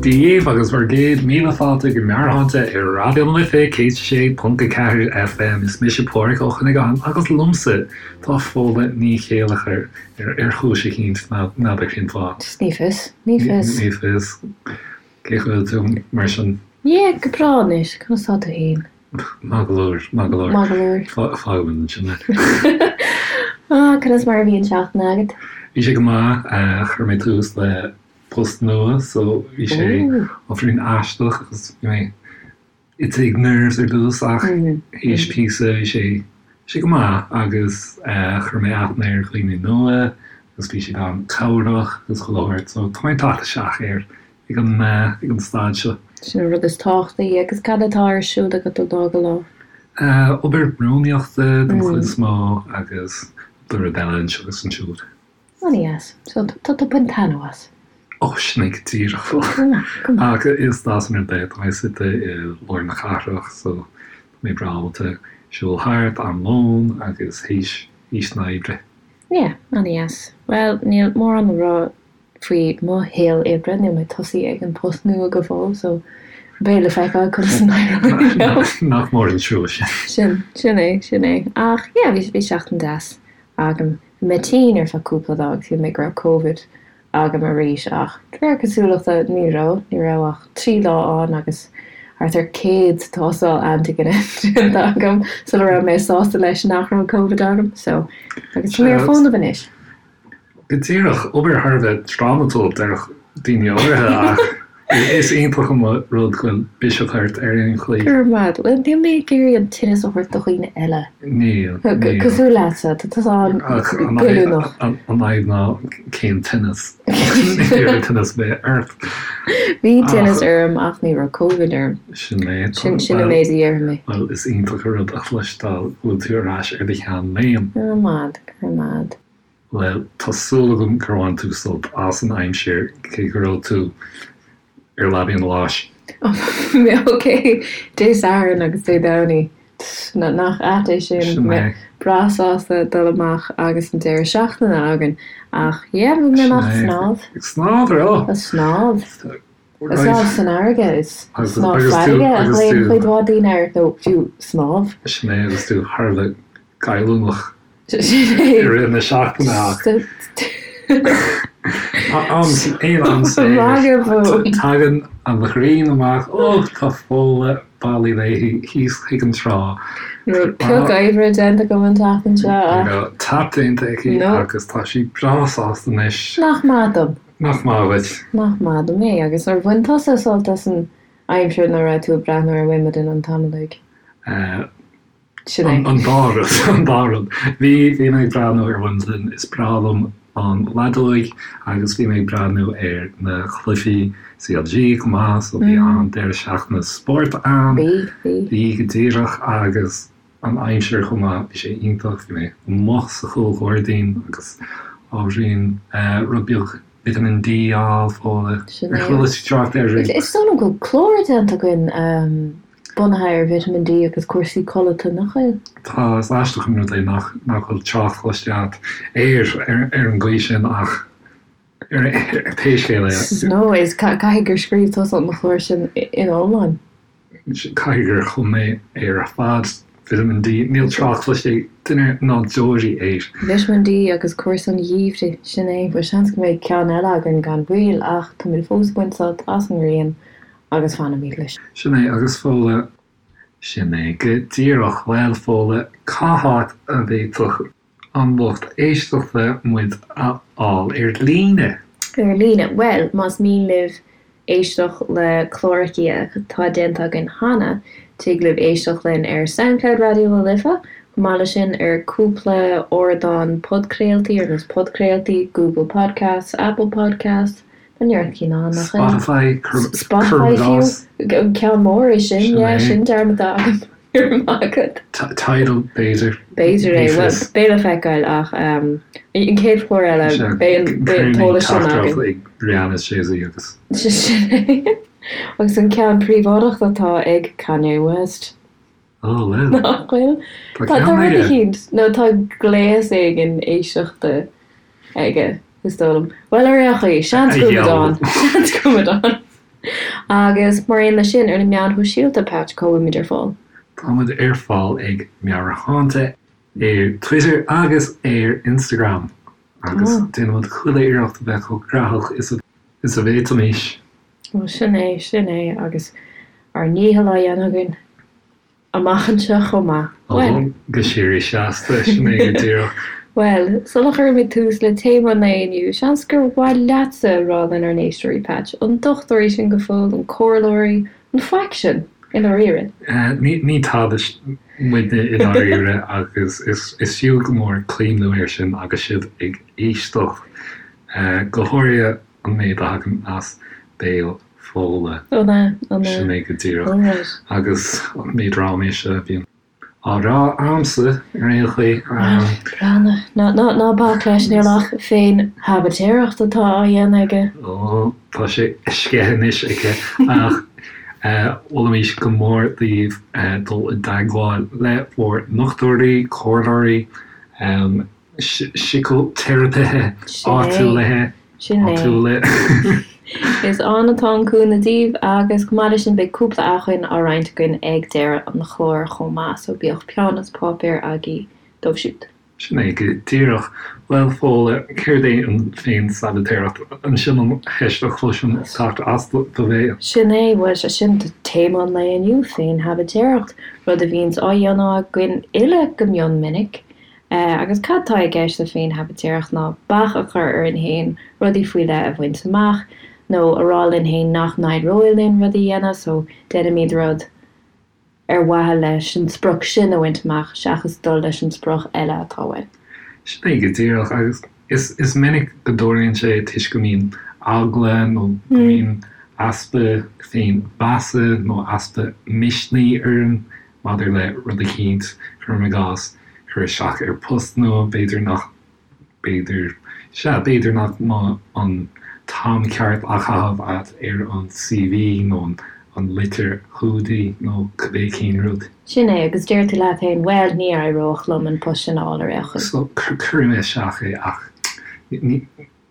Dia dhaoibh agus bhur gcéad míle fáilte go Meabhairshláinte ar Raidió na Life 106.4 FM. Is mise Pádraig Ó Cuinneagáin agus liomsa tá Fódhla Ní Chéilleachair ar chúis eicínt, n'fheadar cén fáth. Ní fios, ní fios. Ní fios. Cén chaoi a bhfuil tú mar sin? Yeah, go breá anois, conas tá tú fhéin? Maith go leor, maith go leor. Maith go leor. Fágfaimid ansin é. Ah, conas mar a bhí an seachtain agat? Bhí sé go maith, chuir mé tús le post nua so bhí sé ábhairín aisteach agus bhí mé ag nerves ar dtús ach théis píosa bhí sé sé go maith agus chuir mé aithne ar dhaoine nua agus bhí siad an-chabhrach agus chuile shórt so tá mé ag teacht isteach air ag an ag an staid seo. Sin an rud is tábhachtaí. Agus cad atá ar siúl agat ó lá go lá? Obair rúnaíochta den chuid is mó agus cúpla rud eile anseo agus ansiúd. An-dheas. So tá tú ag baint taitneamh as? Ó, sin é go díreach. Ach is deas an rud é, tá mé suite i lár na cathrach so tá mé breá ábalta siúl thart am lóin agus théis théis na hoibre. Yeah, an-dheas. Bhuel, níl mórán le rá faoi mo shaol oibre, níl mé tosaithe ag an post nua go fóill so beidh le feiceáil conas a n-éireoidh liom. Nach mór an trua sin. Sin, sin é, sin é. Ach yeah, bhí, bhí seachtain deas agam. Bhí mé tinn ar feadh cúpla lá agus shíl mé go raibh Covid agam arís ach de réir cosúlachta ní raibh, ní raibh ach 3 lá ann agus thart ar 100 tástáil antigine déanta agam sula raibh mé sásta leis nach raibh Covid agam so agus tá mé ar fónamh anois. Go díreach, obair thar a bheith drámatúil, déarfadh daoine áirithe, ach is iontach an rud go bhfuil biseach ort ar aon chaoi. Go raibh maith agat. Bhuel, níl mé ag iarraidh an tinneas a thabhairt do dhaoine eile. Níl, níl. Cosúil leatsa, tá tusa an-ghoilliúnach. An fhadhb ná cén tinneas? Ní raibh tinneas ar bith ort. Bhí tinneas orm ach ní raibh Covid orm. Sin é. Sin an méid a déarfaidh mé. Bhuel, is iontach an rud a chloisteáil go bhfuil tú ar ais ar do sheanléim. Go raibh maith agat, go raibh maith agat. Bhuel, tá súil agam gur bhain tú sult as an aimsir, cé go raibh tú ar leabaidh an bháis. Ok, Dé Sathairn agus Dé Domhnaigh. Nach ait é sin? Sin é. Breá sásta dul amach agus an deireadh seachtaine againn. Ach yeah, bhí mé amach ag snámh. Ag snámh, ar eo? Ag snámh. Ag snámh san fharraige. Is snámh farraige a ghlaonn cuid mhaith daoine air, nó fiú snámh. Sin é, agus tú thar a bheith goilliúnach. I rith na seachtaine ach aon am saor tagann an ghrian amach, ó tá Fódhla bailí léi thíos chuig an trá. Ní raibh pioc oibre déanta agam an tseachtain seo ach. Ní raibh tap déanta aici agus tá sí breá sásta anois. Nach maith dom. Nach maith dhuit. Nach maith dom é. Agus ar bhain tusa sult as an aimsir nuair a raibh tú ag breathnú ar Wimbledon an t-am uilig? Sin é. An dá rud, an dá rud. Bhí, bhí mé ag breathnú ar Wimbledon, is breá liom an leadóig agus bhí mé ag breathnú ar na cluichí CLG chomh maith, so bhí an-deireadh seachtaine spóirt ann. Bhí, bhí. Bhí go díreach agus an aimsir chomh maith, bhí sé iontach, bhí mé amuigh sa chúlghairdín agus ábhairín rud beag Vitamin D a fháil, Fódhla. Sin é. Ar chuala tú trácht air riamh? Is dóigh liom go bhfuil clár déanta againn bunaithe ar Vitamin D agus cúrsaí codlata, nach bhfuil? Tá, is aisteach an rud é nach nach bhfuil trácht cloiste agat air ar an gcaoi sin ach ar pé scéal é. No, is caithfidh gur scríobh tusa an clár sin ina iomlán. Caithfidh gur chum mé é ar fad. Vitamin D, níl trácht cloiste ag duine ná deoraí air. Vitamin D agus cúrsaí an gheimhridh, sin é. Bhuel, seans go mbeidh ceann eile againn gan mhoill ach táimid fós ag baint sult as an ngrian agus fanfaimid leis. Sin é, agus Fódhla. Sin é go díreach. Bhuel, Fódhla, cá háit a bhféadfadh an lucht éisteachta muid a fháil ar líne? Ar líne? Bhuel, más mian libh éisteacht le cláracha atá déanta againn cheana, tig libh éisteacht linn ar Soundcloud Raidió na Life, chomh maith leis sin ar cúpla ardán podchraoltaí ar nós podchraoltaí, Google Podcasts, Apple Podcasts, Tá neart cinn ann, nach ea? Spotify, Spotify fiú, an ceann mór é sin, yeah, sin dearmadta agam, go raibh maith agat. Tidal, b'fhéidir. B'fhéidir é, bhuel, beidh le feiceáil ach an chéad chlár eile, beidh an t-eolas sin againn. Cuir ag Rihanna is Jay-Z agus. Sin é. Agus an ceann príobháideach atá ag Kanye West. Oh, well. Nach bhfuil? Tá Tá ceann rud aige. eicínt, nó tá gléas éigin éisteachta aige, is dóigh liom. Bhuel, ar aon chaoi, seans A go bhfuil muid gheall. ann. Seans go bhfuil muid ann. Agus mar aon leis sin, ar na meáin shóisialta, Patch, cá bhfuilimid ar fáil? Táimid ar fáil ag Meabhairshláinte ar Twitter agus ar Instagram agus déanaimid chuile iarracht a bheith chomh graitheach is a bhféadfaimis. Bhuel, sin é, sin é, agus ár ndícheall á dhéanamh againn. Amach anseo chomh maith. Bhuel. Go síoraí seasta, sin é go díreach. Bhuel, sula gcuirimid tús le téama an lae inniu, seans gur mhaith leatsa a rá lenár n-éisteoirí, Patch, an dochtúirí sinn go fóill, an comhairleoirí, an faic sinn, i ndáiríre? Ní tada muidne i ndáiríre agus is fiú go mór cuimhniú air sin agus sibh ag éisteacht, go háirithe an méid a thagann as béal Fódhla. An ea? An ea? Sin é go díreach. Alright. Agus an méid ráiméise a bhíonn á rá a'msa ar aon chaoi. Breathnaigh. Ná, ná, ná bac leis, níl ach féin-shabaitéireacht atá á dhéanamh aige. Ó, tá sé sceithe anois aici. Ach mholfaimis go mór daoibh dul i dteagmháil le bhur ndochtúirí, comhairleoirí, síciteiripithe áitiúla. Sin é. Is ann atá an cúnamh daoibh agus chomh maith leis sin beidh cúpla acmhainn á roinnt againn ag deireadh an chláir chomh maith so bíodh peann is páipéar agaibh dóibh siúd. Sin é go díreach. Bhuel, Fódhla, céard é an féin-sabaitéireacht? Sin an cheist a chloisim ag teacht as do bhéal. Sin é, bhuel, sé sin téama an lae inniu, féin-shabaitéireacht, rud a bhíonns á dhéanamh againn uile go mion minic. Agus cad tá i gceist le féin-shabaitéireacht ná bac a chur orainn féin rudaí faoi leith a bhaint amach, nó a rá linn féin nach n-éireoidh linn rud a dhéanamh, so déanaimid rud ar mhaithe leis an sprioc sin a bhaint amach seachas dul leis an sprioc eile atá uainn. Sin é go díreach, agus is is minic go dtarlaíonn sé toisc go mbíonn eagla nó go mbíonn easpa féin-mheasa nó easpa misnigh orainn Maidir le rud eicínt, cuirim i gcás, cur isteach ar post nua, b'fhéidir nach, b'fhéidir, sea, b'fhéidir nach mbeadh an t-am ceart á chaitheamh agat ar an CV nó an litir chumhdaigh nó cibé cén rud. Sin é, agus deir tú leat féin, bhuel, ní éireodh liom an post sin a fháil ar aon chaoi. So, cuirfidh mé isteach é ach ní,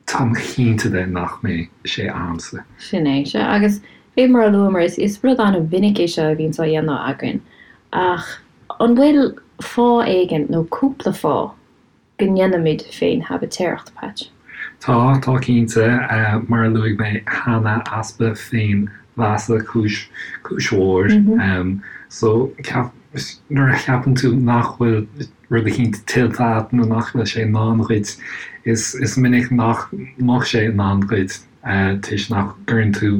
Táim cinnte de nach mbeidh sé a'msa. Sin é, sea. Agus fé mar a luamar, is rud an-mhinic é seo a bhíonns á dhéanamh againn. Ach an bhfuil fáth éigin, nó cúpla fáth, go ndéanaimid féin-shabaitéireacht, Patch? Tá, tá cinnte. Mar a luaigh mé cheana, easpa féin-mheasa, cúis, cúis mhór. So, ceap, nuair a cheapann tú nach bhfuil rud eicínt tuillte agat nó nach bhfuil sé i ndán dhuit, is minic nach mbeadh sé i ndán dhuit toisc nach gcuireann tú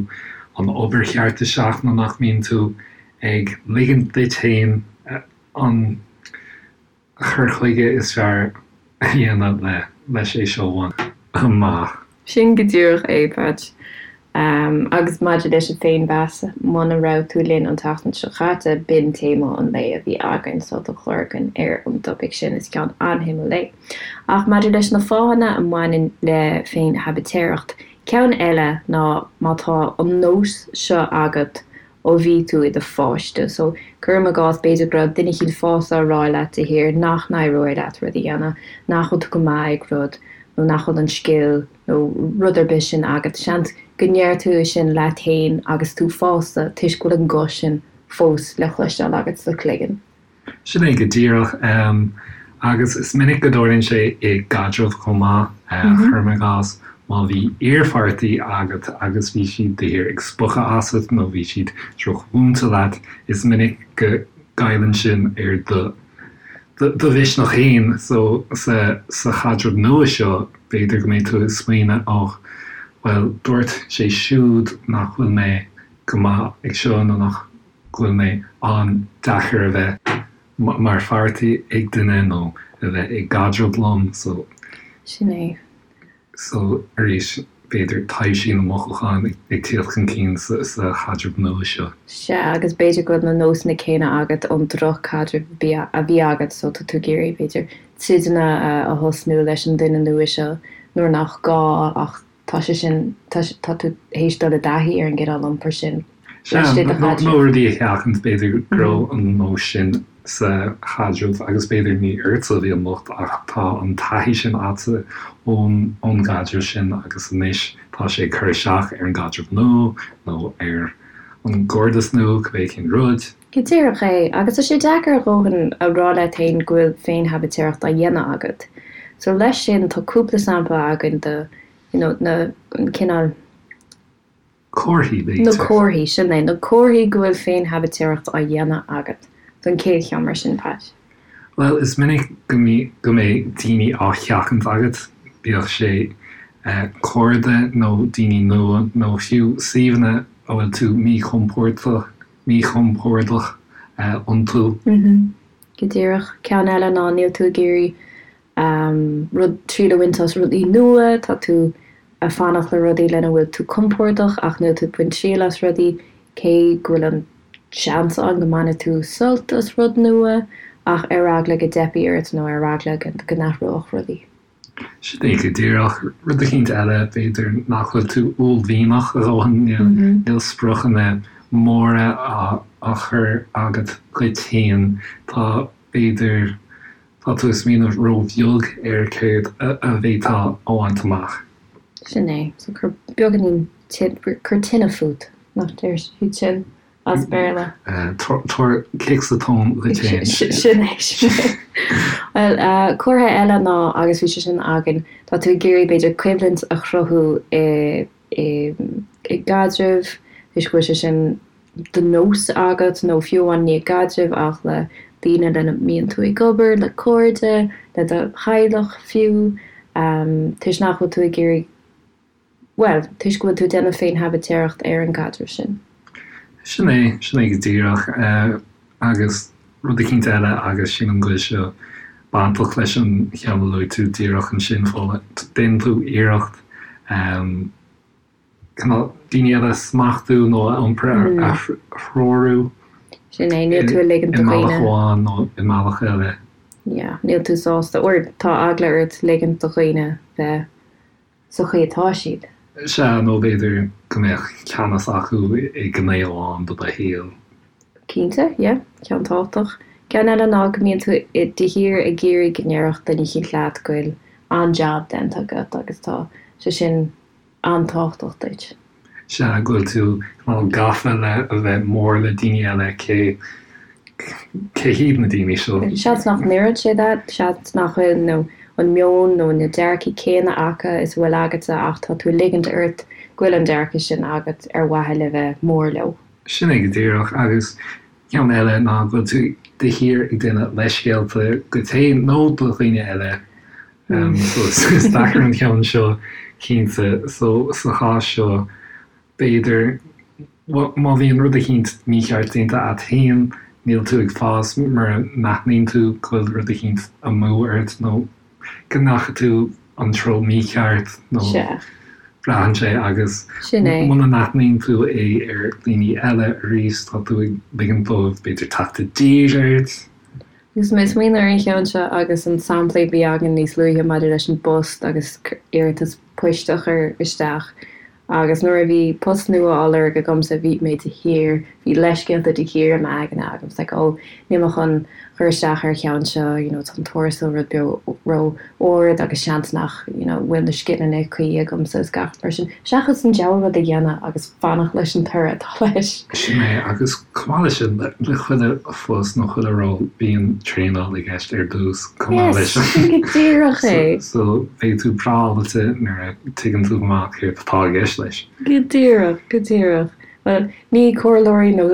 an obair cheart isteach nó nach mbíonn tú ag ligint duit féin an cur chuige is fearr a dhéanamh leis é seo a bhaint amach. Sin go díreach é, Patch. Agus maidir leis an féinmheas, muna raibh tú linn an tseachtain seo chaite, b'in téama an lae a bhí againn, so tá clár againn ar an dtopaic sin, is ceann an-shuimiúil é. Ach maidir leis na fáthanna a mbaineann le féin-shabaitéireacht, ceann eile ná má tá an nós seo agat ó bhí tú i do pháiste. So, cuirim i gcás, b'fhéidir go raibh duine eicínt fásta á rá leat de shíor nach n-éireoidh leat rud a dhéanamh, nach bhfuil tú go maith ag rud, nó nach bhfuil an scil nó rud ar bith sin agat. Seans go ndeir tú é sin leat féin agus tú fásta toisc go bhfuil an guth sin fós le cloisteáil agat sa chloigeann. Sin é go díreach. Agus is minic go dtarlaíonn sé i gcaidreamh chomh maith. Cuirim i gcás, má bhí iarpháirtí agat agus bhí siad de shíor ag spochadh asat nó bhí siad drochmhúinte leat, is minic go gcailleann sin ar do do mhisneach féin. So, sa sa chaidreamh nua seo, b'fhéidir go mbeidh tú ag smaoineamh, oh, bhuel, dúirt sé siúd nach bhfuil mé go maith ag seo nó nach go bhfuil mé an-deacair a bheith mar pháirtí ag duine nó a bheith i gcaidreamh liom so. Sin é. So, arís, b'fhéidir taibhsí na mothúchán ag tíocht chun cinn sa chaidreamh nua seo. Sea, agus b'fhéidir go bhfuil na nósanna céanna agat ón droch-chaidreamh a bhí agat so tá tú ag iarraidh, b'fhéidir, troideanna a thosnú leis an duine nua seo nuair nach gá ach Tá sé sin, tá, tá tú théis dul i dtaithí ar an gcineál iompair sin Sea, laistigh de chaidreamh. nó rudaí a sheachaint, b'fhéidir go raibh an nós sin. sa chaidreamh agus b'fhéidir ní ortsa a bhí an locht ach tá an taithí sin agatsa ón ón gcaidreamh sin agus anois tá sé ag cur isteach ar an gcaidreamh nua nó ar an gcairdeas nua, cibé cén rud. Go díreach é, agus tá sé deacair a dhóthain a rá leat féin go bhfuil féin-shabaitéireacht á dhéanamh agat. So leis sin tá cúpla sampla againn de you know na, an cineál. Comharthaí, b'fhéidir. Na comharthaí, sin é, na comharthaí go bhfuil féin-shabaitéireacht á dhéanamh agat. So an chéad cheann mar sin, Pat. Bhuel, is minic go go mbeidh daoine á sheachaint agat, bíodh sé cairde nó daoine nua nó fiú suíomhanna a bhfuil tú míchompordach míchompordach iontu. Go díreach. Ceann eile ná níl tú ag iarraidh rud, triail a bhaint as rudaí nua, tá tú ag fanacht le rudaí lena bhfuil tú compordach ach níl tú ag baint triail as rudaí, cé go bhfuil an seans ann go mbainfidh tú sult as rud nua ach ar eagla go dteipfidh ort nó ar eagla go n-athródh rudaí. Sin é go díreach. Rud eicínt eile, b'fhéidir nach bhfuil tú uaillmhianach a dhóthain, níl spriocanna móra á chur agat dhuit féin. Tá, b'fhéidir, tá tú ag smaoineamh róbheag ar céard a bhféadfá a bhaint amach. Sin é. So cuir beagáinín, cuir tine fút, nach deir siad sin? as Béarla. Tabhair cic sa tóin dhuit féin. Sin é, sin é. Bhuel, comhartha eile ná, agus bhí sé sin againn, tá tú ag iarraidh b'fhéidir coimhlint a chruthú i i gcaidreamh, toisc go bhfuil sé sin de nós agat, nó fiú amháin ní i gcaidreamh ach le daoine lena mbíonn tú ag obair, le cairde, le do theaghlach fiú, toisc nach bhfuil tú ag iarraidh Bhuel, toisc go bhfuil tú ag déanamh féin-shabaitéireacht ar an gcaidreamh sin. Sin é, sin é go díreach. Agus rud eicínt eile, agus sílim go bhfuil seo bainteach leis an cheann a luaigh tú díreach ansin, Fódhla, déanann tú iarracht cineál daoine eile a smachtú nó a iompar a threorú. Sin é, níl tú ag ligint do dhaoine. I mbealach amháin nó i mbealach eile. Yeah, níl tú sásta, or tá eagla ort ligint do dhaoine bheith sa chaoi atá siad. Sea, nó b'fhéidir go mbeadh ceannas acu i ngné amháin de do shaol. Cinnte, yeah, ceann tábhachtach. Ceann eile ná go mbíonn tú de shíor ag iarraidh go ndéarfadh duine eicínt leat go bhfuil an-jab déanta agat agus tá sé sin an-tábhachtach duit. Sea, go bhfuil tú cineál gafa le a bheith mór le daoine eile, cé, cé hiad na daoine seo? Seans nach n-oireann sé duit, seans nach bhfuil nó an meon nó na dearcaí céanna acu is a bhfuil agatsa ach tá tú ag ligint ort go bhfuil an dearcadh sin agat ar mhaithe le bheith mór leo. Sin é go díreach, agus ceann eile ná go bhfuil tú de shíor ag déanamh leithscéalta duit féin nó do dhaoine eile So is deacair an ceann seo cinnte. So sa chás seo b'fhéidir má bhíonn rud eicínt mícheart déanta a't féin, níl tú ag fás mura n-aithníonn tú go bhfuil rud eicínt amú ort nó go ndeachaigh tú an treo mícheart nó braitheann sé agus muna n-aithníonn tú é ar dhaoine eile arís tá tú ag ligint dóibh b'fhéidir teacht i dtír ort. Agus mé ag smaoineamh ar an cheann seo agus an sampla a bhí againn níos luaithe maidir leis an bpost agus iarratas poist a chur isteach agus nuair a bhí post nua á lorg agamsa bhí mé de shíor, bhí leithscéalta de shíor i m'aigne agam, it's like oh níl mé chun cur isteach ar an cheann seo, you know tá an tuarastal rud beag ró-ard agus seans nach you know bhfuil na scileanna cuí agamsa is gach mar sin, seachas an diabhal rud a dhéanamh agus fanacht leis an toradh atá leis. Sin é agus chomh maith leis sin, le chuile phost nó chuile ról, bíonn traenáil i gceist ar dtús chomh maith leis. Yes, sin go díreach é. So beidh tú breá ábalta nuair a tuigeann tú amach céard atá i gceist leis. Go díreach, go díreach. Bhuel, ní comhairleoirí nó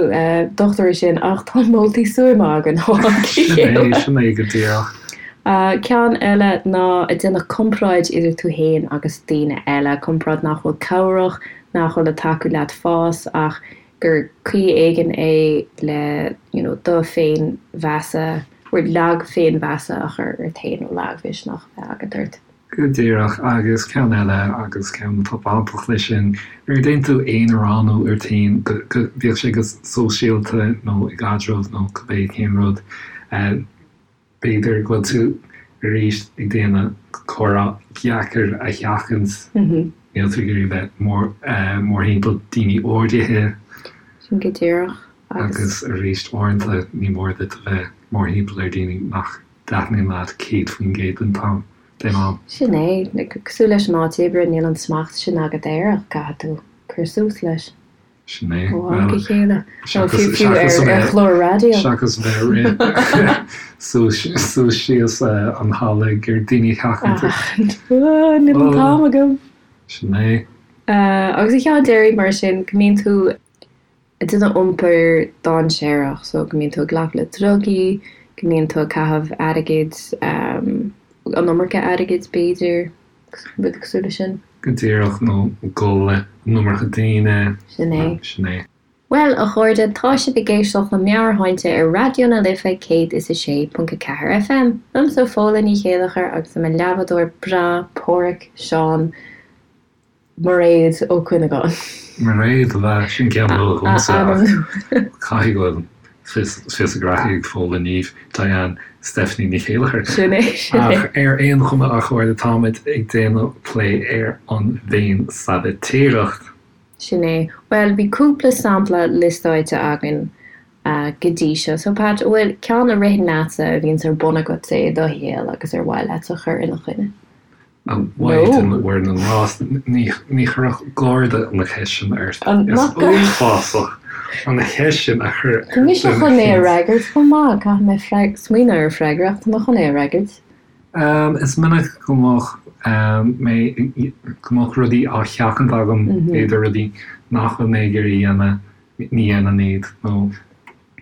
dochtúirí sinn ach tá moltaí stuama againn ó am go Sin é, chéile. sin é go díreach. Ceann eile ná ag déanamh comparáid idir tú féin agus daoine eile, comparáid nach bhfuil cabhrach, nach bhfuil ag tacú leat fás ach gur caoi éigin é le you know do féinmheasa or lag féinmheasa a chur ort féin nó lagmhisneach a bheith agat ort. Go díreach, agus ceann eile, agus ceann atá bainteach leis sin, nuair a déanann tú aonaránú ort féin, bíodh sé go sóisialta nó i gcaidreamh nó cibé cén rud, B'fhéidir go bhfuil tú arís ag déanamh comhrá deacair a sheachaint. Níl tú ag iarraidh bheith mórthimpeall daoine áirithe. Sin go díreach. Agus arís, uaireanta ní mór duit a bheith mórthimpeall ar daoine nach dtaitníonn leat 100% den t-am, den am. Sin é. Cosúil leis an áit oibre, níl an smacht sin agat air ach caithfidh tú cur suas leis. Sin é. Ó am go chéile. Nó fiú fiú ar ar chlár raidió. Seachas bheith ag rith suas suas síos an halla ag iarraidh daoine a sheachaint. Níl an t-am agam. Sin é. Agus an ceann deiridh mar sin, go mbíonn tú ag déanamh iompar dainséarach, so go mbíonn tú ag glacadh le drugaí, go mbíonn tú ag caitheamh airgid, an iomarca airgid b'fhéidir, rud cosúil leis sin. Go díreach, nó ag gol le an iomarca daoine. Sin é. Sin é. Bhuel, a chairde, tá sibh ag éisteacht le Meabhairshláinte ar Raidió na Life 106.4 FM. Liomsa Fódhla Ní Chéilleachair agus le mo leathbhádóir breá Páraic Seán Mairéad Ó Cuinneagáin. Mairéad, ab ea? Sin ceann nua dhomsa ach caithfidh go bhfuil fios a graithe ag Fódhla Niamh, Diane, Stephanie Ní Chéilleachair. Sin é, sin é. Ach ar aon chuma, a chairde, táimid ag déanamh plé ar an bhféin-sabaitéireacht. Sin é. Bhuel, bhí cúpla sampla liostáilte againn go dtí seo. So, Pat, an bhfuil ceann a ritheann leatsa a bhíonns ar bun agatsa i do shaol agus ar mhaith leat a chur ina choinne? A Mhaighdean Mhuire na nGrást, ní chuirfeadh Garda an cheist sin ort. Is uafásach an cheist sin a chur ar Tá mise chun é a fhreagairt chomh maith. Caithfidh mé smaoineamh ar freagra ach tá mé chun é a fhreagairt. Is minic go mbeadh mé, go mbeadh rudaí á sheachaint agam, b'fhéidir rudaí nach bhfuil mé ag iarraidh a dhéanamh, ní dhéanaim iad, nó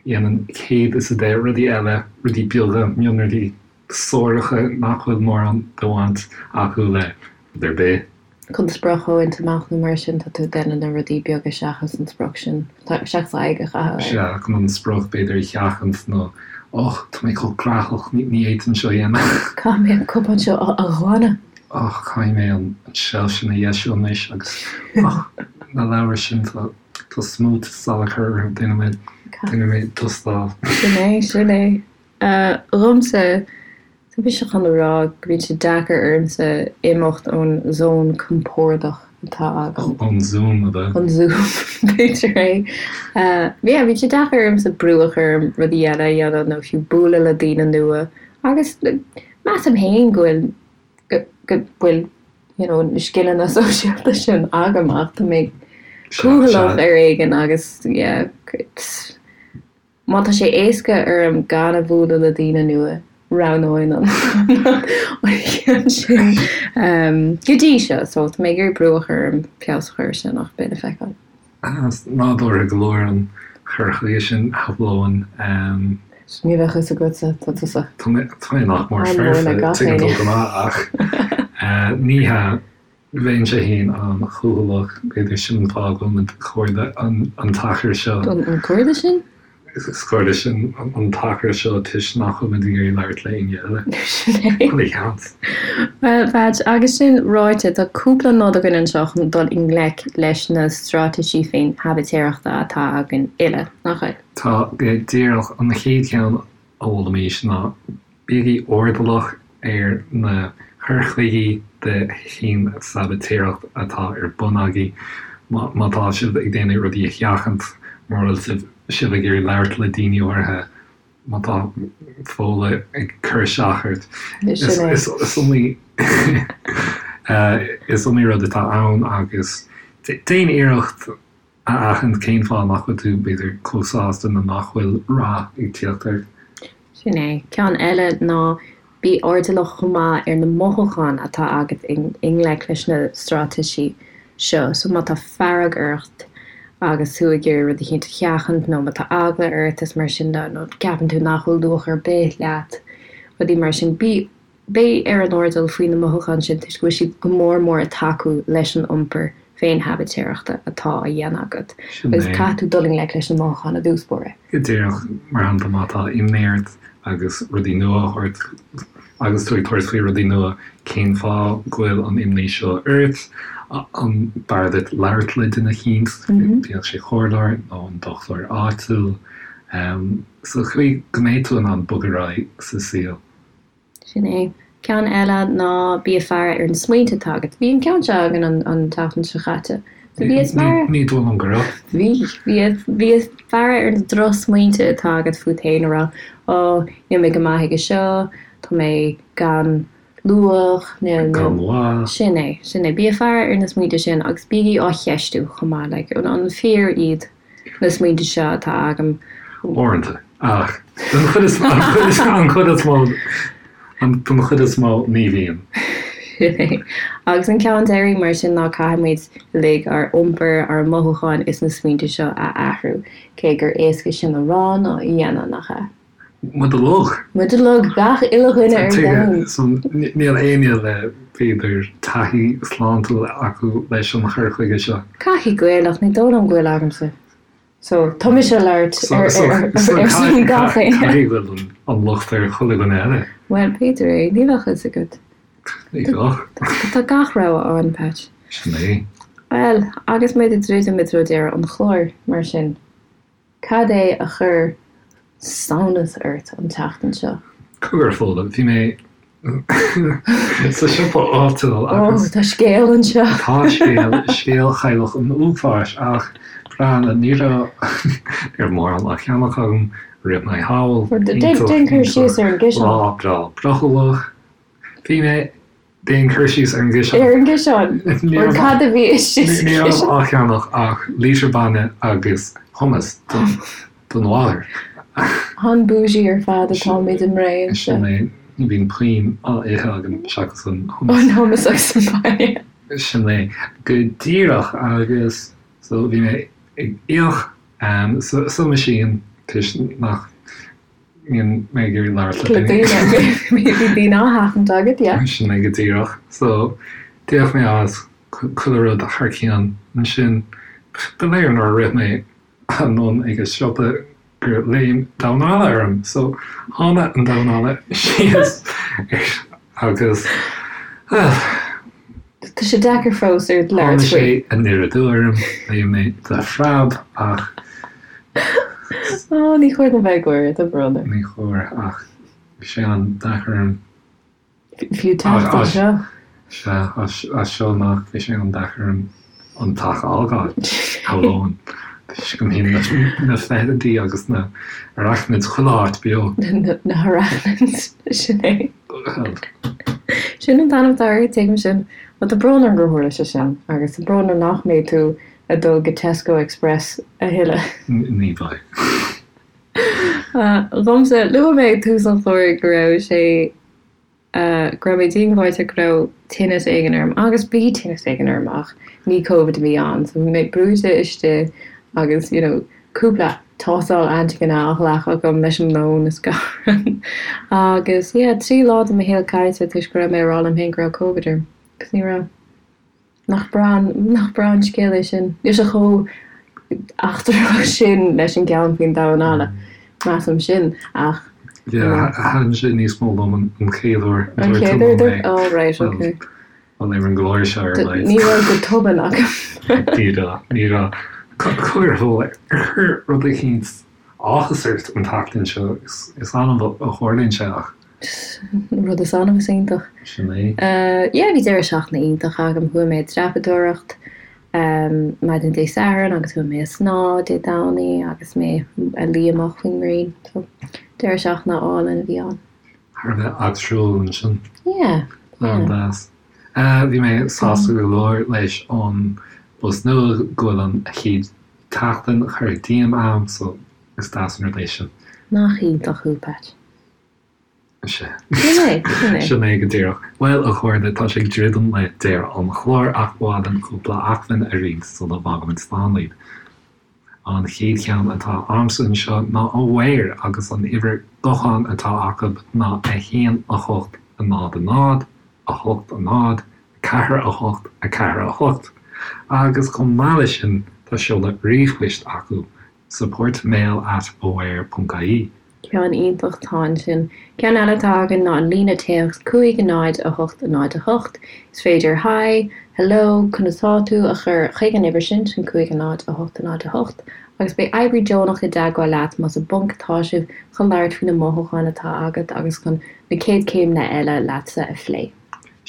dhéanaim 110 rudaí eile, rudaí beaga, mionrudaí suaracha nach bhfuil mórán de bhaint acu le rud ar bith. Chun sprioc a bhaint amach nó mar sin, tá tú ag déanamh na rudaí beaga seachas an sprioc sin, seachas aghaidh a chaitheamh air. Sea, chun an sprioc b'fhéidir a sheachaint nó och, tá mé chomh graitheach, ní fhéadfainn seo a dhéanamh. Caithfidh mé an cupán seo a ghlanadh. Och, caithfidh mé an tseilf sin a dheisiú anois agus och, na leabhair sin, tá smúit salachar orthu, déanfaidh mé, déanfaidh mé dustáil. Sin é, sin é. Dhomsa, tá mise chun a rá go mbíonn sé deacair ormsa imeacht ón zón compordach atá agam. Ón Zoom, ab ea? An Zoom, b'fhéidir é. Yeah, bíonn sé deacair ormsa brú a chur orm rudaí eile a dhéanamh nó fiú bualadh le daoine nua agus measaim féin go bhfuil, go bhfuil you know, na scileanna sóisialta sin agam ach tá mé cúthaileach ar éigean agus yeah, it's. Má tá sé éasca orm gan a bhualadh le daoine nua, roghnóinn an ceann sin go dtí seo. So tá mé ag iarraidh brú a chur orm feabhas a chur air sin ach beidh le feiceáil. Nádúrtha go leor an cur chuige sin, shamhlóinn. Ní bheadh fhios agatsa, tá tusa. Tá mé nach mór foirfe, tuigeann tú go maith ach ní hea. Bheinnse féin an-chúthaileach, b'fhéidir sin an fáth go bhfuil muid cairde an t-achar seo. An cairde sin? Is cairde sinn an t-achar seo toisc nach bhfuil muid ag iarraidh labhairt le éinne eile. Sin é. Chuile sheans. Bhuel, Patch, agus sin ráite, tá cúpla nod againn anseo chun dul i ngleic leis na straitéisí féin-shabaitéireachta atá againn uile, nach bhfuil? Tá, go díreach. An chéad cheann a mholfaimis ná Bígí airdeallach ar na cur chuigí de fhéin-sabaitéireacht atá ar bun agaibh. Má tá sibh ag déanamh rudaí a sheachaint, mura bhfuil sibh ag iarraidh labhairt le daoine áirithe, má tá Fódhla ag cur isteach ort, is iomaí is iomaí rud atá ann agus déan iarracht a aithint cén fáth nach bhfuil tú, b'fhéidir, chomh sásta nó nach bhfuil rath ag tíocht ort. Sin é. Ceann eile ná bí airdeallach chomh maith ar na mothúcháin atá agat i ngleic leis na straitéisí seo. So má tá fearg ort agus tú ag iarraidh rud eicínt a sheachaint nó má tá eagla ort is mar sin de nó ceapann tú nach bhfuil luach ar bith leat, rudaí mar sin, bí Bí ar an airdeall faoi na mothúcháin sin toisc go bhfuil siad go mór mór ag tacú leis an iompar féin-shabaitéireachta atá á dhéanamh agat agus caithfidh tú dul i ngleic leis na mothúcháin i dtús báire. Go díreach, mar shampla má tá imní ort agus rudaí nua á thabhairt agus tú ag tabhairt faoi rudaí nua, cén fáth go bhfuil an imní seo ort? An b'fhearr duit labhairt le duine eicínt, bíodh sé comhairleoir nó an dochtúir áitiúil, sa chaoi go mbeidh tú in ann bogadh ar aghaidh sa saol? Sin é. Ceann eile ná bí ag faire ar na smaointe atá agat. Bhí an ceann seo againn an tseachtain seo chaite. So bí ag faire. Ní dóigh liom go raibh. Bhí. Bhí. Bí ag faire ar na drochsmaointe atá agat fút féin a rá, Ó, níl mé go maith aige seo, tá mé gan luach, níl. Gan mhaith. Sin é. Sin é. Bí ag faire ar na smaointe sin agus bígí á cheistiú chomh maith. Like, an fíor iad na smaointe seo atá agam? Uaireanta. Ach don chuid is an chuid is mó don chuid is mó ní bhíonn. Sin é. Agus an ceann deiridh mar sin ná caithfidh muid uilig ár iompar, ár mothúcháin is na smaointe seo a athrú. Cé gur éasca sin a rá ná a dhéanamh, nach ea? Muid uilig. Muid uilig, gach uile dhuine ar domhan. So níl éinne le b'fhéidir taithí sláintiúil acu leis an chur chuige seo. Caithfidh go bhfuil ach ní dóigh liom go bhfuil agamsa. So, tá mise ag labhairt ar son gach éinne. Caithfidh go bhfuil an locht ar chuile dhuine eile. Bhuel, b'fhéidir é. Níl a fhios agat. Ní bheadh. Tá gach rogha ann, Pat. Sin é. Bhuel, agus muid ag druidim i dtreo deireadh an chláir, mar sin, cad é a chuir samhnas ort an tseachtain seo? Cogar, Fódhla, bhí mé sa siopa áitiúil agus. Ó, tá scéal anseo. Tá scéal, scéal chailleach an uafáis ach breathnaigh, ní raibh, ní raibh mórán á cheannach agam, rith mé thall, Déan cur síos ar an gciseán. Lá breá brothallach. Bhí mé Déan cur síos ar an gciseán. Ar an gciseán? Nó cad a bhí istigh sa chiseán? Ní raibh á cheannach ach lítear bainne agus hummus don mháthair. An bougie ar fad atáimid i mBré anseo. Sin é. Ní bhíonn puinn á ithe agam seachas an hummus. An hummus agus an bainne. Sin é. Go díreach agus so bhí mé ag íoc sa machine toisc nach mbíonn mé ag iarraidh labhairt le daoine. Bhí daoine á sheachaint agat, yeah. Sin é go díreach. So d'íoc mé as chuile rud thar cionn. Ansin ba léir nuair a rith mé anonn ag an siopa gur léim damhán alla orm. So tháinig an damhán alla síos agus, well. Tá sé deacair fós ort labhairt faoi. Tháinig sé aniar aduaidh orm, léim mé de phreab ach. Ó, ní chóir dom bheith ag gáire, tá brón orm. Ní chóir, ach bhí sé an-deacair orm. Fiú teacht anseo. Sea, as seo amach bhí sé an-deacair orm an teach a fhágáil, shamhlóinn, toisc go mbíonn na feithidí agus na arachnids chuile áit beo. Na harachnids, sin é. Sin an t-ainm atá orthu, tuigim sin. Bhuel, tá brón orm gur tharla sé sin, agus tá brón orm nach mbeidh tú ag dul go Tesco Express a thuilleadh. Ní bheidh. Dhomsa, luaigh mé ag tús an chláir go raibh sé, go raibh mé díongbháite go raibh tinneas éigin orm, agus bhí tinneas éigin orm ach ní Covid a bhí ann, so bhí mé brúite istigh agus you know cúpla tástáil antigine á ghlacadh agam leis an lón is gach rud. Agus yeah, 3 lá de mo shaol caillte toisc go raibh mé ag rá liom féin go raibh Covid orm, agus ní raibh. Nach breá an, nach breá an scéal é sin? Níl sé chomh eachtrach sin leis an gceann faoin damhán alla, measaim sin, ach. Yeah, thaitin sé níos mó liom an chéad uair a dúirt tú liom é. Oh right, ok. Bhuel, ar an gclár seo ar a laghad. Ní raibh go tobann agam. Ní raibh, ní raibh. Cogar, ar chuir rud eicínt áthas ort an tseachtain seo? Is annamh a tharlaíonn sé ach. Rud is annamh is iontach. Sin é. Yeah, bhí deireadh seachtaine iontach agam. Chuaigh mé ag dreapadóireacht maidin Dé Sathairn agus chuaigh mé ag snámh Dé Domhnaigh agus mé ag luí amach faoin ngrian. So, deireadh seachtaine álainn a bhí ann. Thar a bheith eachtrúil ansin. Yeah, yeah. An-deas. Bhí mé sásta go leor leis an bpost nua go bhfuil an chéad tseachtain curtha díom a'm so is deas an rud é sin. Nach iontach thú, Pat. Sin é. Sin é go díreach. Bhuel, a chairde, tá sé ag druidim le deireadh an chláir ach ba mhaith linn cúpla acmhainn a roinnt sula bhfágaimid slán libh. An chéad cheann atá a'msa anseo ná Aware agus an uimhir gutháin atá acu ná 1 8 0 0 8 0 4 8 4 8 agus chomh maith leis sin tá seoladh ríomhphoist acu, supportmail at aware ponc ie. Ceann iontach atá ansin. Ceann eile atá againn ná an líne téacs 5 0 8 0 8. Is féidir Hi, Hello, Conas tá tú? a chur chuig an uimhir sin, sin 5 0 8 0 8, agus beidh oibrí deonach i dteagmháil leat más i bponc atá sibh chun labhairt faoi na mothúcháin atá agat agus chun na céad céimeanna eile leatsa a phlé.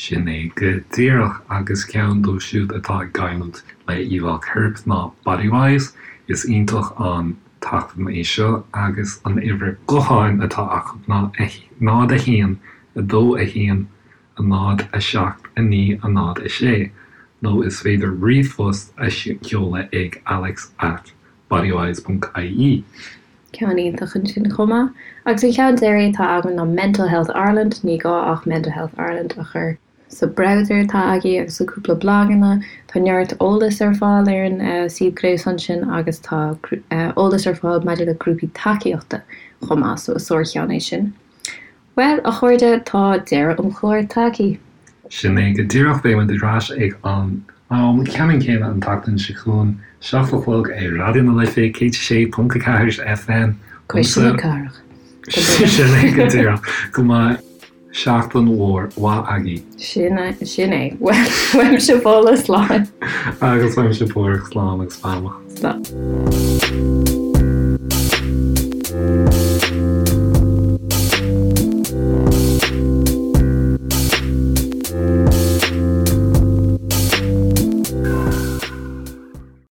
Sin é go díreach, agus ceann dóibh siúd atá ag gaillimh le íomhá coirp ná Bodywhys. Is iontach an t-acmhainn é seo agus an uimhir gutháin atá acu ná 0 1 2 1 0 7 9 0 6 nó is féidir ríomhphost a sheoladh ag alex at bodywhys ponc ie. Ceann iontach ansin chomh maith. Agus an ceann deiridh atá agam ná Mental Health Ireland, ní gá ach Mental Health Ireland a chur sa browser atá agaibh agus sa cúpla blaganna. Tá neart eolas ar fáil ar an suíomh gréasáin sin agus tá eolas ar fáil maidir le grúpaí tacaíochta chomh maith, so is sár-cheann é sin. Bhuel, a chairde, tá deireadh an chláir tagtha. Sin é go díreach, beidh muid ar ais ag an am ceannann céanna an tseachtain seo chugainn, 7 a chlog ar Raidió na Life 106.4 FM. Cuisle na Cathrach. Sin é go díreach. Go mbeidh seachtain mhór mhaith agaibh. Sin é, sin é. Uaimse Fódhla, slán. Agus uaimse Páraic, slán agus beannacht. Slán.